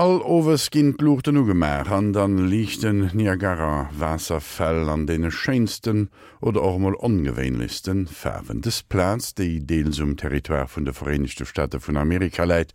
All Owes ginn d'Luuchten ugemaach an dann liichten Niagara Waasserfäll an deene schéinsten oder och emol ongewéinlechsten Faarwen. Dës Plaz, déi deels um Territoire vun de Vereenegte Staate vun Amerika läit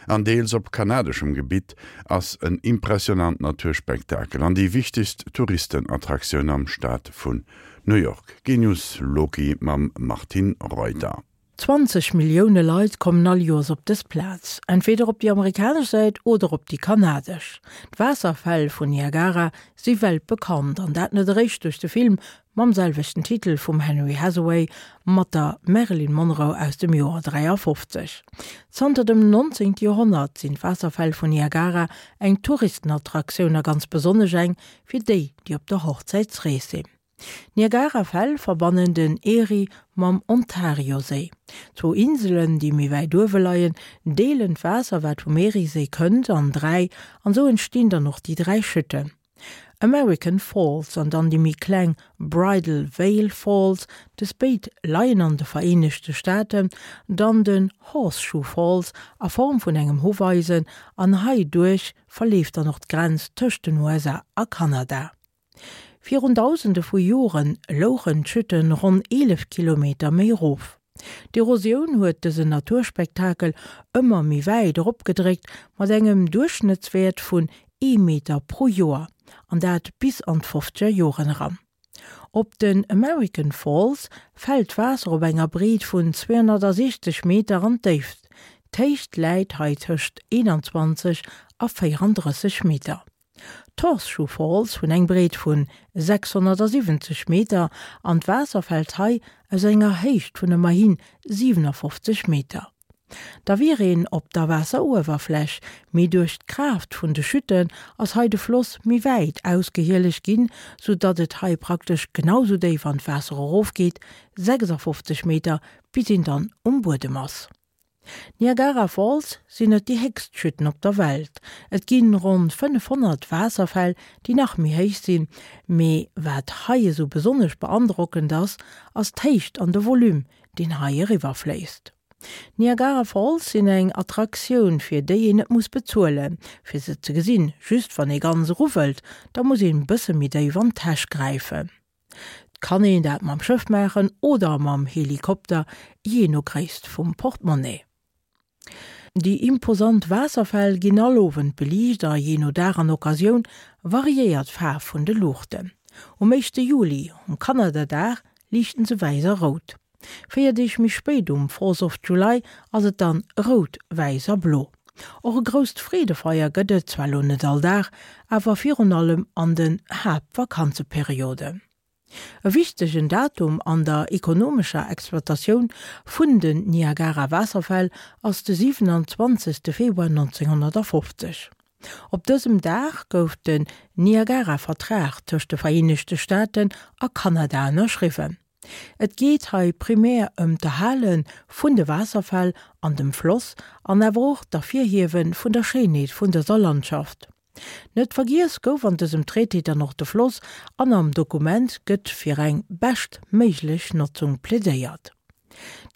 an deels op kanadeschem Gebitt, ass en impressionant Naturspektakel an déi wichtegst Touristenattraktioun am Staat vun New York. Genius Loki mam Martine Reuter. 20 Millioune Leit kommen all Joers op dës Plaz, entweder op déi amerikanesch Säit oder op déi kanadesch. D'Waasserfäll vun Niagara si weltbekannt, an dat net eréischt duerch de Film mam selwechten Titel vum Henry Hathaway mat der Marilyn Monroe aus dem Joer 53. Zanter dem 19. Joerhonnert sinn d'Waasserfäll vun Niagara eng Touristenattraktioun a ganz besonnesch eng fir déi, déi op der Hochzäitsrees sinn. D'Niagarafäll verbannen den Erie mam Ontarioséi. Zwou Inselen, déi méi wäit uewe leien, deelen d'Waasser, wat vum Erieséi kënnt, an 3, an esou entstinn dann och déi 3 Chuten. American Falls an dann déi méi kleng Bridal Veil Falls, dës béid leien an de Vereenegte Staaten, dann den Horseshoe Falls a Form vun engem Huffeisen an hei duerch verleeft dann och d'Grenz tëscht den USA a Kanada. Virun Dausende vu Jore louchen d'Chütten ronn 11 Kilometer méi erof. D'Erosioun huet dësen Naturspektakel ëmmer méi wäit eropgedréckt, mat engem Duerchschnëttswäert vun ee Meter pro Joer, an dat bis an d'fofzeger Joren eran. Op den American Falls fält d'Waasser op enger Breet vun 260 Meter an d'Déift. D'Héicht läit hei tëscht 21 a 34 Meter. D'Horseshoe Falls hunn eng Breet vun 670 Meter an d'Waasser fält hei aus enger Héicht vun ëmmerhi 57 Meter. Da wier een op der Waasseruewerfläch, mee duerch d'Kraaft vun de Chuten ass hei de Floss méi wäit ausgehielegt ginn, sou datt et hei praktesch genau sou déif an d'Waasser erofgeet, 56 Meter, bis een dann um Buedem ass. D'Niagara Falls sinn net déi héchst Chuten op der Welt. Et ginn ronn 500 Waasserfäll, déi nach méi héich sinn, mee wat hei esou besonnesch beandrockend ass, ass d'Héicht an de Volume, deen hei eriwwer fléisst. D'Niagara Falls sinn eng Attraktioun, fir déi een net muss bezuelen, fir se ze gesinn. Just wann ee ganz eru wëllt, da muss een bësse méi déif an d'Täsch gräifen. 't kann een dat mam Schëff maachen oder mam Helikopter, jee no Gréisst vum Portemonnaie. Déi imposant Waasserfäll ginn all Owend beliicht a jee no Dag an Occasioun variéiert d'Faarf vun de Luuchten. Um éischte Juli, um Kanadadag, liichten se wäiss a rout. 4 Deeg méi spéit, um Fourth of July, ass et dann rout, wäiss a blo. Och e grousst Freedefeier gëtt et zwar lo net all Dag, awer virun allem an den Haaptvakanzeperioden. E wichtegen Datum an der ekonomescher Exploitatioun vun den Niagara-Waasserfäll ass de 27. Februar 1950. Op dësem Dag gouf den Niagara-Vertrag tëscht de Vereenegte Staaten a Kanada ënnerschriwwen. Et geet hei primär ëm d'Erhale vun de Waasserfäll an dem Floss an awer och d'Ervirhiewe vun der Schéinheet vun dëser Landschaft. Net vergiess gouf an dësem Traité dann och de Floss an am Dokument gëtt fir eng bescht méiglech Notzung plädéiert.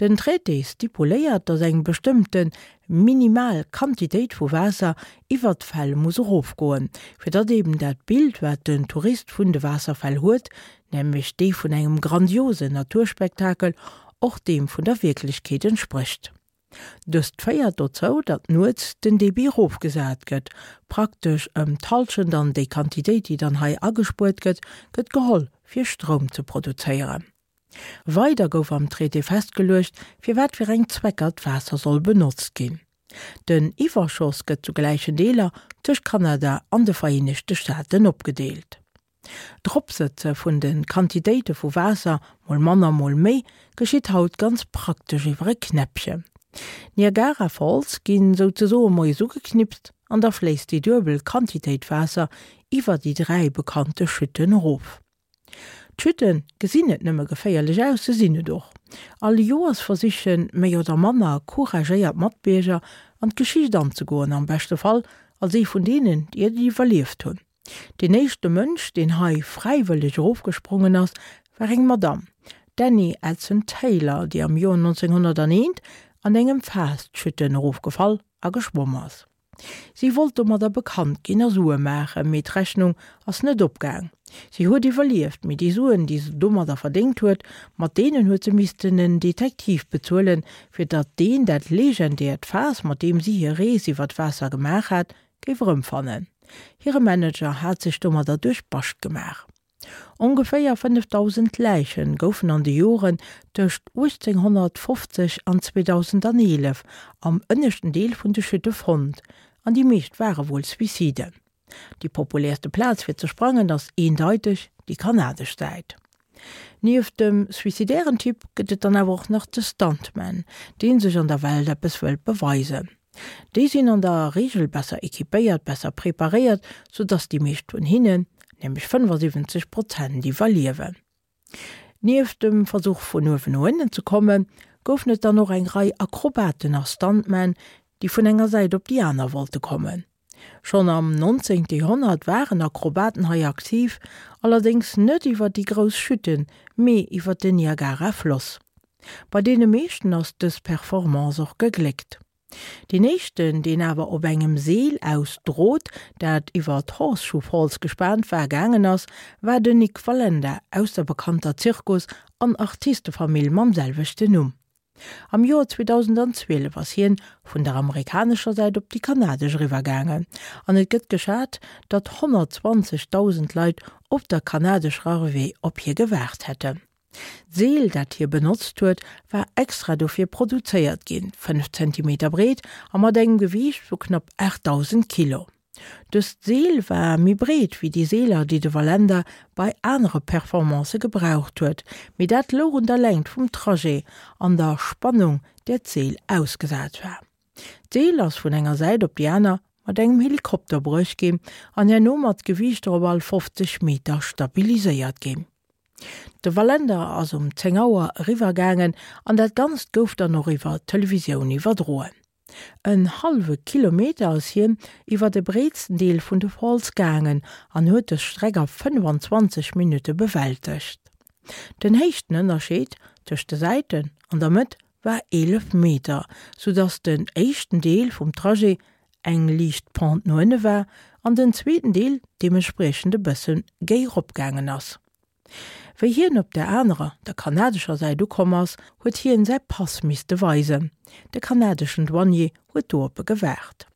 Den Traité stipuléiert, datt eng bestëmmte minimal Quantitéit vu Waasser iwwert d'Fäll muss erofgoen, fir datt eben dat Bild, wat den Tourist vun de Waasserfäll huet, nämlech dee vun engem grandiosen Naturspektakel, och deem vun der Wierklechkeet entsprécht. Dëst féiert dozou, datt nuets den Debit erofgesat gëtt, praktesch ëm d'Hallschent, an déi Quantitéit, déi dann hei agespuert gëtt, gëtt geholl, fir Stroum ze produzéieren. Weider gouf am Traité festgeluecht, fir wat fir eng Zwecker d'Waasser soll benotzt ginn. Den Iwwerschoss gëtt zu gläichen Deeler tëscht Kanada an de Vereenegte Staaten opgedeelt. D'Eropsëtze vun de Quantitéite vu Waasser, mol manner, mol méi, geschitt haut ganz praktesch iwwer e Knäppchen. D'Niagara Falls ginn souzesoe moies ugeknipst an da fléisst déi duebel Quantitéit Waasser iwwer déi 3 bekannte Chuten erof. D'Chute gesinn net nëmme geféierlech aus, se sinn et och. All Joers versiche méi oder manner couragéiert Matbierger an d'Geschicht anzegoen, am beschte Fall als ee vun deenen, déi et iwwerlieft hunn. Deen éischte Mënsch, deen hei fräiwëlleg erofgesprongen ass, war eng Madamm, d'Annie Edson Taylor, déi am Joer 1901 an engem Faass d'Chute erofgefall a geschwomm ass. Si wollt domadder bekannt ginn a Sue maachen, mee d'Rechnung ass net opgaang. Si huet iwwerlieft, mee déi Suen, déi se domadder verdéngt huet, mat deenen huet se missten en Detektiv bezuelen, fir datt deen dat legendäert Faass, mat deem si hir Rees iwwer d'Waasser gemaach hat, géif erëmfannen. Hire Manager hat sech domadder duerch Bascht gemaach. Ongeféier 5.000 Läiche goufen an de Joren tëscht 1850 an 2011 am ënneschten Deel vun de Chute fonnt, an déi meescht ware wuel Suiciden. Déi populäerste Plaz fir ze sprangen ass eendeiteg déi kanadesch Säit. Nieft dem suicidären Typ gëtt et dann awer och nach de Stuntman, dee sech an der Welt eppes wëllt beweisen. Déi sinn an der Reegel besser equipéiert, besser preparéiert, sou dass déi meescht vun hinnen, nämlech 75 Prozent, iwwerliewen. Nieft dem Versuch vun uewen no ënnen ze kommen, goufen et dann och eng Rei Akrobaten a Stuntmen, déi vun enger Säit op déi aner wollte kommen. Schonn am 19. Joerhonnert waren Akrobaten hei aktiv, allerdéngs net iwwer déi grouss Chuten, mee iwwer den Niagara-Floss. Bei deene meeschten ass dës Performance och gegléckt. Deen éischten, deen awer op engem Seel aus Drot, dat iwwer d'Horseshoe Falls gespaant war, gaangen ass, war den Nik Wallenda aus der bekannter Zirkus an Artistefamill mam selwechten Numm. Am Joer 2012 ass hien vun der amerikanescher Säit op déi kanadesch eriwwer gaangen an et gëtt geschat, datt 120.000 Leit op der kanadescher Arrivée op hie gewaart hätten. D'Seel, dat hie benotzt huet, war extra dofir produzéiert ginn, 5 Zentimeter breet a mat engem Gewiicht vu knapp 8.000 Kilo. Dëst Seel war méi breet wéi déi Seeler, déi de Wallenda bei anere Performancë gebraucht huet, mee dat louch un der Längt vum Trajet an der Spannung, där d'Seel ausgesat war. D'Seel ass vun enger Säit op déi aner mat engem Helikopter bruecht ginn an herno mat Gewiichter op all 50 Meter stabiliséiert ginn. De Wallenda ass um 10 Auer eriwwer gaangen an dat Ganzt gouf dann och iwwer d'Televisioun iwwerdroen. En hallwe Kilometer ass hien iwwer de breetsten Deel vun de Falls gaangen an huet dës Streck a 25 Minutte bewältegt. Den Héichtenënnerscheed tëscht de Säiten an der Mëtt war 11 Meter, soudass den éischten Deel vum Trajet eng liicht Pente no ënne war an den zweeten Deel deementspriechend e bësse géi ropgaangen ass. Wéi hien op der anerer, der kanadescher Säit ukomm ass, huet hien säi Pass misste weisen. De kanadeschen Douanier huet do op e gewaart.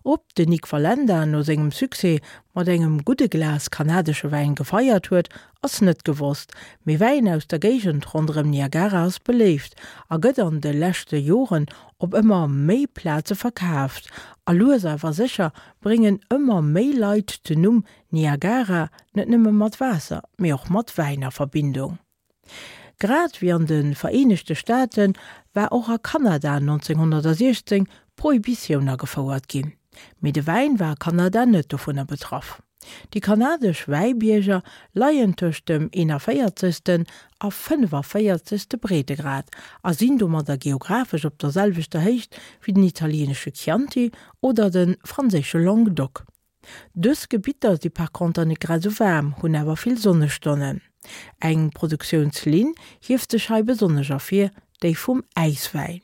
Ob den Nik Wallenda no sengem Succès mat engem gudde Glas kanadesche Wäin gefeiert huet, ass net gewosst, mee Wäin aus der Géigend ronderëm Niagara ass beléift a gëtt an de leschte Joren op ëmmer méi Plaze verkaaft. A lues awer sécher bréngen ëmmer méi Leit den Numm Niagara net nëmme mat Waasser, mee och mat Wäin a Verbindung. Grad wéi an de Vereenegte Staate war och a Kanada 1916 d'Prohibitioun agefouert ginn. Mee de Wäin war a Kanada net dovunner betraff. Déi kanadesch Wäibierger leien tëscht dem 41. a 45. Breetegrad a sinn domadder geographesch op der selwechter Héicht wéi den italieenesche Chianti oder de franséische Languedoc. Dës Gebitter si par conter net grad esou waarm, hunn awer vill Sonnestonnen. Eng Produktiounslinn hieft sech hei besonnesch ervir, déi vum Äiswäin.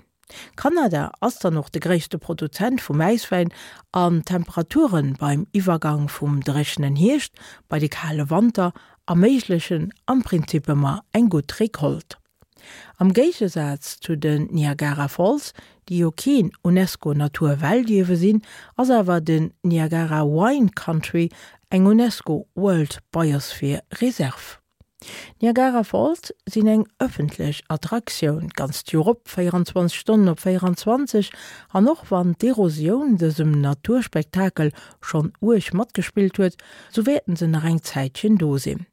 Kanada ass dann och de gréisste Produzent vum Äiswäin an d'Temperature beim Iwwergang vum dréchenen Hierscht bei de kale Wanter erméiglechen am Prinzip ëmmer eng gutt Recolte. Am Géigesaz zu den Niagara Falls, déi jo keen UNESCO-Naturweltierwe sinn, ass awer den Niagara Wine Country eng UNESCO World Biosphere Reserve. D'Niagara Falls sinn eng ëffentlech Attraktioun, d'ganzt Joer op, 24 Stonnen op 24, an och wann d'Erosioun dësem Naturspektakel schonn uerg matgespillt huet, sou wäerten se nach eng Zäitchen do sinn.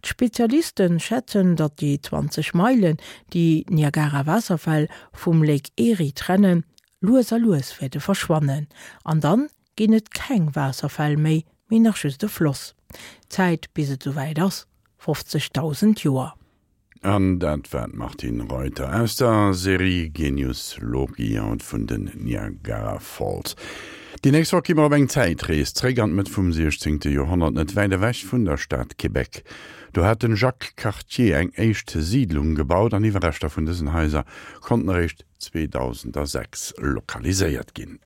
D'Spezialiste schätzen, datt déi 20 Meilen, déi d'Niagara-Waasserfäll vum Lake Erie trennen, lues a lues wäerte verschwannen. An dann ginn et keng Waasserfäll méi, mee nach just e Floss. D'Zäit bis et souwäit ass, 50.000 Joer. An dat war d'Martine Reuter aus der Serie Genius Loci haut vun den Niagara Falls. Déi nächst Woch gi mer op eng Zäitrees zréck an d'Mëtt vum 16. Joerhonnert, net wäit ewech vun der Stad Québec. Do hat den Jacques Cartier eng éischt Siidlung gebaut an Iwwerreschter vun dësen Haiser konnten eréischt 2006 lokaliséiert ginn.